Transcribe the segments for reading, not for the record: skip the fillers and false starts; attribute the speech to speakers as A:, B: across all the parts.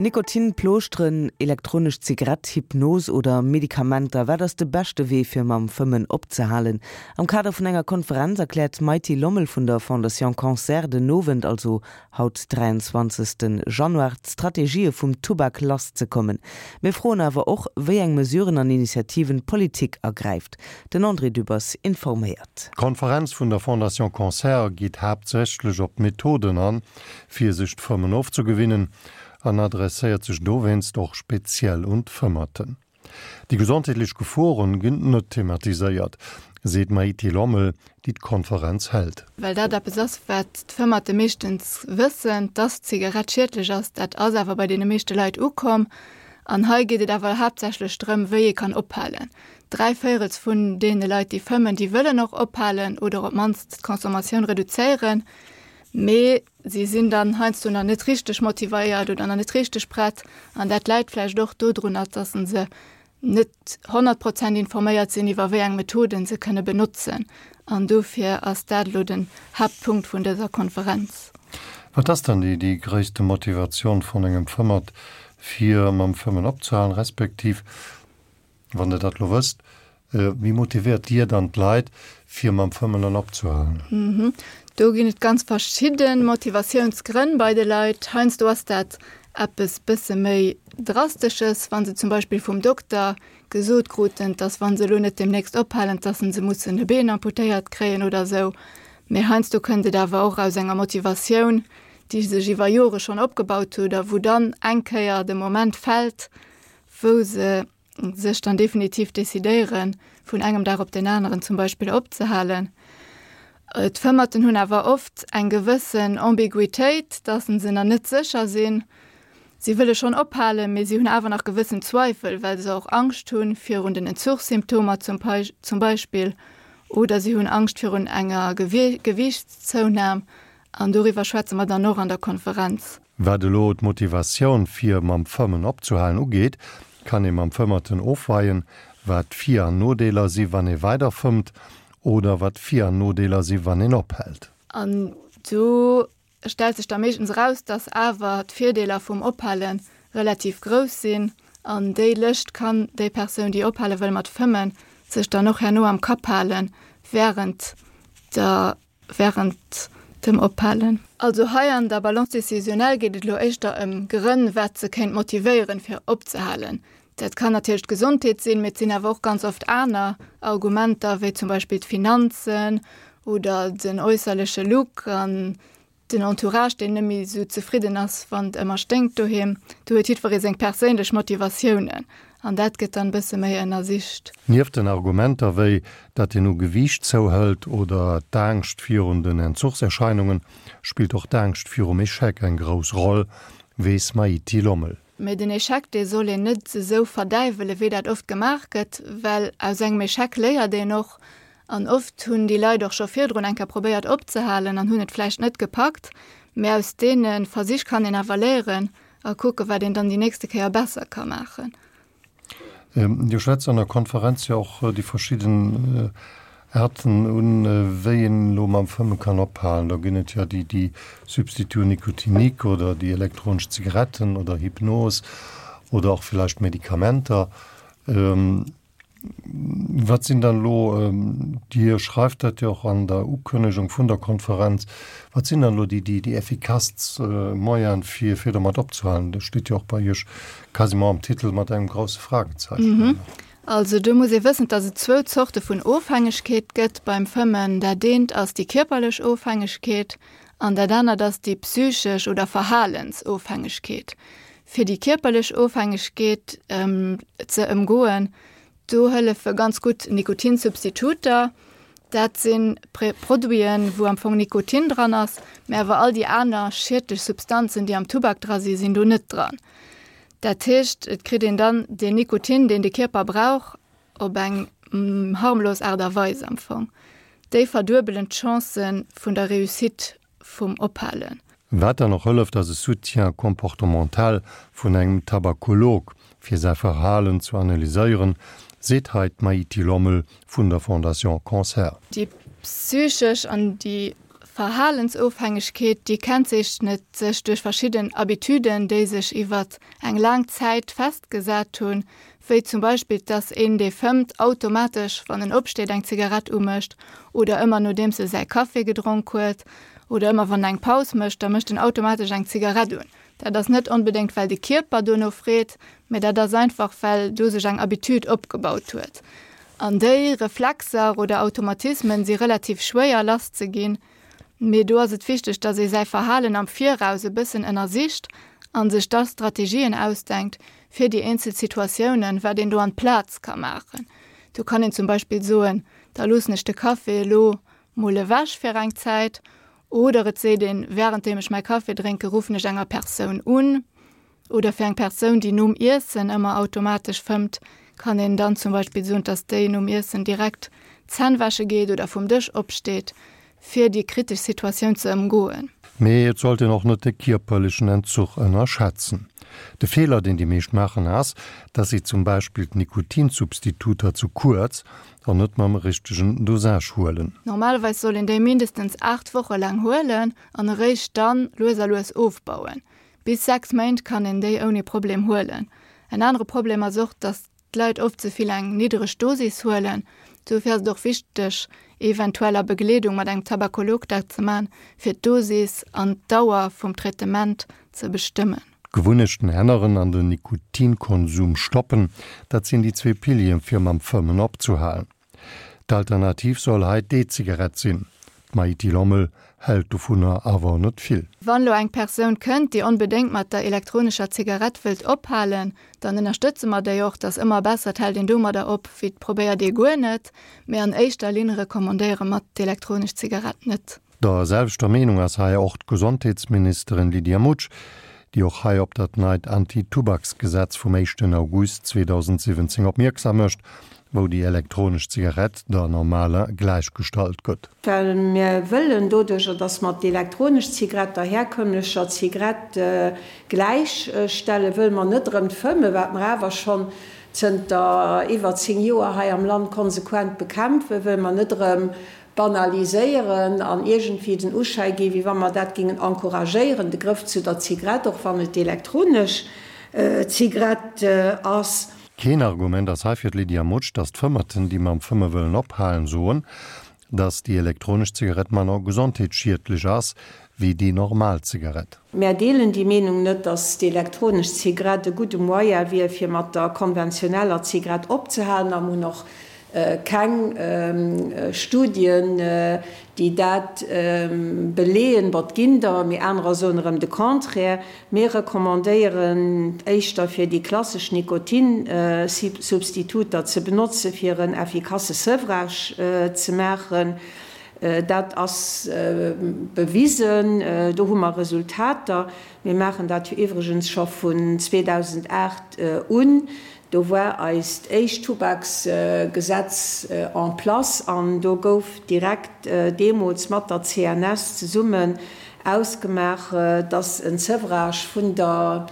A: Nikotin, Plooschteren, elektronesch Zigarett, Hypnos oder Medikamenter, wat ass de beschte Wee fir mam Fëmmen opzehalen? Am Kader vun enger Konferenz erkläert d'Maity Lommel vun der Fondation Cancer den Owend, also haut 23 Januar, d'Strategië vum Tubak lass ze kommen. Mir froen awer och, wéi eng Mesuren an Initiativen d'Politik ergräift. Den André Dübbers informéiert.
B: D'Konferenz vun der Fondation Cancer geet haaptsächlech op d'Methoden an, fir sech d'Fëmmen ofzegewinnen an adresséiert sech dowéinst och speziell un d'Fëmmerten. Déi gesondheetlech Geforen ginn net thematiséiert, seet d'Maïté Lommel, déi d'Konferenz hält.
C: Well dat eppes ass, wat d'Fëmmerte meeschtens wëssen, dass d'Zigarett schiedlech ass. Dat ass awer bei deene meeschte Leit ukomm. An hei geet et awer haaptsächlech drëm, wéi ee kann ophalen. Dräivéierels vun deene Leit, déi fëmmen, déi wëllen och ophalen oder op d'mannst d'Consommatioun reduzéieren. Mee si sinn dann heiansdo nach net richteg motivéiert oder nach net richteg prett. An dat läit vläicht och dodrunner, dass se net 100 Prozent informéiert sinn, iwwer wéi eng Methoden se kënne benotzen. An dofir ass dat elo den Haaptpunkt vun dëser Konferenz.
B: Wat ass dann déi déi gréisste Motivatioun vun engem Fëmmert, fir mam Fëmmen opzehalen, respektiv Wann Der dat elo wësst, wéi motivéiert Dir dann d'Leit, fir mam Fëmmen dann opzehalen?
C: Do ginn et ganz verschidde Motivatiounsgrënn bei de Leit. Heiansdo ass dat eppes bësse méi Drastesches, wa se zum Beispill vum Dokter gesot kruten, dass wa se elo net deemnächst ophalen, dass se mussen e Been amputéiert kréien oder esou. Mee heiansdo kënnt et awer och aus enger Motivatioun, déi sech iwwer Jore schonn opgebaut huet a wou dann eng Kéier de Moment fält, wou se sech dann definitiv decidéieren, vun engem Dag op den aneren zum Beispill opzehalen. D'Fëmmerten hunn awer oft eng gewëssen Ambiguitéit, dass se nach net sécher sinn. Si wëlle schonn ophalen, mee si hunn awer nach gewëssen Zweifel, well se och Angscht hu virun den Entzuchssymptomer zum Beispill oder si hunn Angscht virun enger Gewiichtszounahm. An doriwwer schwätze mer dann och an der Konferenz.
B: Wat elo d'Motivatioun fir mam Fëmmen opzehalen ugeet, kann ee mam Fëmmerten ofweien, wat d'Vir an Nodeeler si wann ee weider fëmmt oder wat d'Vir an Nodeeler si wann een ophält.
C: An do stellt sech da meeschtens eraus, dass awer d'Virdeeler vum Ophale relativ grouss sinn. An déi Lëscht kann déi Persoun, déi ophale wëll mat fëmmen, sech dann och herno am Kapp halen, wärend der während dem Ophalen. Also hei an der Balance décisionnelle geet et elo éischter ëm Grënn, wat se kéint motivéieren, fir opzehalen. Dat kann natierlech d'Gesondheet sinn, mee et sinn awer och ganz oft aner Argumenter, wéi zum Beispill d'Finanzen oder den äusserleche Look an Den Entourage, deen net méi esou zefridden ass, wann et ëmmer sténkt doheem. Do huet jiddweree seng perséinlech Motivatiounen an dat gëtt dann e bësse méi ënnersicht.
B: Nieft den Argumenter wéi datt een u Gewiicht zouhëlt oder d'Angscht virun den Entzuchserscheinungen, spillt och d'Angscht virum Echec eng grouss Roll, weess Maïti Lommel.
C: Mee den Echec, dee soll een net esou verdäiwelen, wéi dat oft gemaach gëtt, well aus engem Echec léiert een och. An oft hunn déi Leit och scho virdrun eng Kéier probéiert opzehalen an hunn et vläicht net gepackt. Mee aus deene Versich kann een awer léieren a kucken, wat een dann déi nächste Kéier besser ka maachen.
B: Dir schwätzt an der Konferenz jo och déi verschidden Aarten un, wéi een elo mam Fëmme kann ophalen. Do ginn et jo déi, déi Substituts nicotiniques oder déi elektronesch Zigaretten oder Hypnos oder och villäicht Medikamenter. Wat sinn dann elo, Dir schreift dat jo och an der Ukënnegung vun der Konferenz, wat sinn dann elo déi, déi effikasst Moyene fir, fir domat opzehalen? Dat steet jo och bei Iech quasiment am Titel mat engem grousse Fragezeichen.
C: Also do muss ee wëssen, dass et zwou Zorte vun Ofhängegkeet gëtt beim Fëmmen. Dat eent ass déi kierperlech Ofhängegkeet an dat anert ass déi psychesch oder Verhalensofhängegkeet. Fir déi kierperlech Ofhängegkeet ze ëmgoen, do hëllefe ganz gutt Nikotinsubstituter. Dat si Produiten, wou am Fong Nikotin dran ass, mä awer all déi aner schiedlech Substanzen, déi am Tubak dra sinn, sinn do net dran. Dat heescht, et kritt een dann deen Nikotin, deen de Kierper brauch, op eng harmlos Aart a Weis am Fong. Déi verduebelen d'Chancë vun der Réussite vum Ophalen.
B: Wat dann och hëlleft ass e Soutien comportemental vun engem Tabakolog, fir säi Verhalen zu analyséieren, seet hei d'Maïti Lommel vun der Fondation Cancer.
C: Déi psychesch an déi. Verhalensofhängegkeet, déi kennzeechnet sech duerch verschidden Habituden, déi sech iwwert eng laang Zäit festgesat hunn, wéi zum Beispill, dass een, dee fëmmt, automatesch, wann en opsteet, eng Zigarett umécht oder ëmmer nodeems e säi Café gedronk huet oder ëmmer wann en eng Paus mécht, da mécht en automatesch eng Zigarett un. Dat ass net onbedéngt, well de Kierper dono freet, mä dat ass einfach, well do sech eng Habitude opgebaut huet. An déi Reflexer oder Automatismen si relativ schwéier lass ze ginn, mee do ass et wichteg, dass ee säi Verhalen am Viraus e bëssen ënnersicht a sech da Strategien ausdenkt fir déi eenzel Situatiounen, wat een do an d'Plaz ka maachen. Do kann een zum Beispill soen, da loossen ech de Café elo mol ewech fir eng Zäit oder et seet een, wärenddeem ech mäi Café drénke ruffen ech enger Persoun un. Oder fir eng Persoun, déi nom Iessen ëmmer automatesch fëmmt, kann een dann zum Beispill soen, dass déi nom Iessen direkt d'Zänn wäsche geet oder vum Dësch opsteet, fir déi kritesch Situatioun ze ëmgoen.
B: Mee et sollt een och net de kierperlechen Entzuch ënnerschätzen. De Feeler, deen déi meescht maachen, ass, dass si zum Beispill d'Nikotinsubstituter zu kuerz an net mam richtegen Dosage huelen.
C: Normalerweis soll een déi mindestens 8 Woche laang huelen an eréischt dann lues a lues ofbauen. Bis 6 Méint kann een déi ouni Problem huelen. En anere Problem ass och, dass d'Leit oft ze vill eng niddereg Dosis huelen. Dofir ass et och wichteg, eventuell a Begleedung mat engem Tabakolog dat ze man, fir d'Dosis an d'Dauer vum Traitement ze bestëmmen.
B: D'Gewunnechten änneren an den Nikotinkonsum stoppen, dat sinn déi zwee Pilieren, fir mam Fëmmen opzehalen. D'Alternativ soll hei d'E-Zigarett sinn. D'Maïti Lommel hält dovunner awer net vill.
C: Wann elo eng Persoun kënnt, déi onbedéngt mat der elektronescher Zigarett wëllt ophalen, dann ënnerstëtze mer déi och. Et ass ëmmer besser, et hält een domadder op, wéi et probéiert ee guer net. Mee an éischter Linn recommandéiere mer d'elektronesch Zigarett net.
B: Der selwechter Meenung ass hei och d'Gesondheetsministerin Lydia Mutsch, déi och hei op dat neit Anti-Tubaksgesetz vum éischten August 2017 opmierksam mécht, wou déi elektronesch Zigarett der normaler gläichgestallt gëtt.
D: Well mir wëllen doduercher, dass mer d'elektronesch Zigarett der herkömmlecher Zigarett gläichstellen, wëlle mer net erëm d'Fëmmen, wat mer awer schonn zënter iwwer 10 Joer hei am Land konsequent bekämpfen, wëlle mer net erëm banaliséieren an iergendwéi den Uschäi ginn, wéi wa mer dat géingen encouragéieren, de Grëff zu der Zigrett, och wann et d'elektronesch Zigrett ass.
B: Keen Argument ass hei fir d'Lydia Mutsch, datt d'Fëmmerten, déi mam Fëmme wëllen ophalen, soen, datt déi elektronesch Zigarett manner gesondheetsschiedlech ass wéi déi normal Zigarett.
D: Mär deelen déi Meenung net, datt d'elektronesch Zigarett e gudde Moyen wier, fir mat der konventioneller Zigarett opzehalen a mir hunn och Keng Studien, déi dat beleeën. Bon, et ginn der, mee anerer soen erëm de Contraire. Mir recommandéieren éischter, fir déi klassesch Nikotinsubstituter ze benotzen, fir en effikasse Sevrage ze maachen. Dat ass bewisen, do hu mer Resultater. Mir maachen dat jo iwwregens scho vun 2008 un. Do war eist éischt Tubaksgesetz en place an do gouf direkt deemools mat der CNS zesummen ausgemaach, dass en Sevrage vun der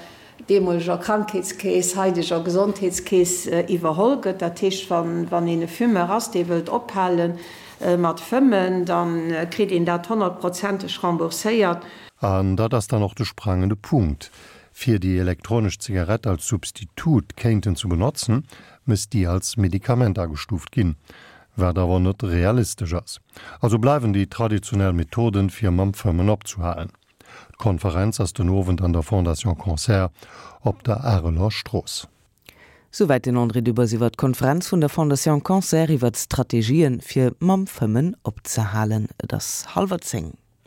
D: deemoleger Krankheetskeess, haideger Gesondheetskeess iwwerholl gëtt. Dat heescht, wann een e Fumeur ass, dee wëllt ophale mat fëmmen, da kritt een dat honnertprozenteg rembourséiert.
B: An dat ass dann och de sprangende Punkt. Fir déi elektronesch Zigarett als Substitut kéinten ze benotzen, misst déi als Medikament agestuuft ginn, wat awer net realistesch ass. Also bleiwen déi traditionell Methoden, fir mam Fëmmen opzehalen. D'Konferenz ass den Owend an der Fondation Cancer op der Areler Strooss.
A: Souwäit den André Dübbers iwwer d'Konferenz vun der Fondation Cancer iwwer d'Strategien, fir mam Fëmmen opzehalen. Et ass hallwer 10.